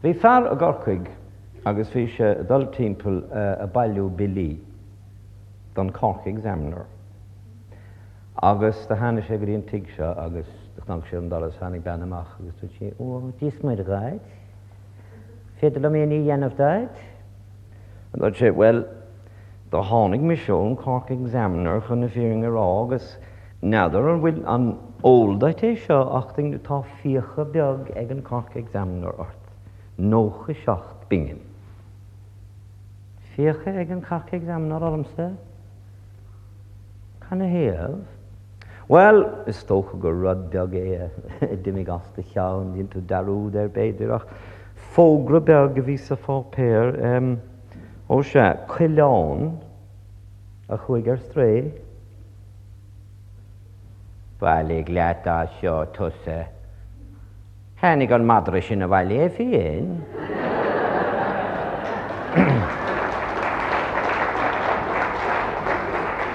Bhí fear i gCorcaigh agus bhí sé ag dul timpeall ag bailiú billí don Cork Examiner. Agus do tháinig sé go dtí an tigh seo agus do chnag sé ar an doras, tháinig bean amach agus dúirt sí, Ó, Dia is Muire dhuit, féidir liom aon ní a dhéanamh duit? A dúirt sé, Bhuel, do tháinig mise ón Cork Examiner chun na fírinne a rá agus n'fheadar an bhfuil, an eol duit é seo ach tá fiacha beag ag an Cork Examiner ort, 97 bpingin. Fiacha ag an Cork Examiner ormsa? Canathaobh? Bhuel, is dócha gur rud beag é a d'imigh as do cheann, dhein tú dearúd air b'fhéidir, ach fógra beag a bhí sa pháipéar, em, ó sea, coileán a chuaigh ar strae. Bailigh leat as seo, tusa. Tháinig an madra sin abhaile é féin.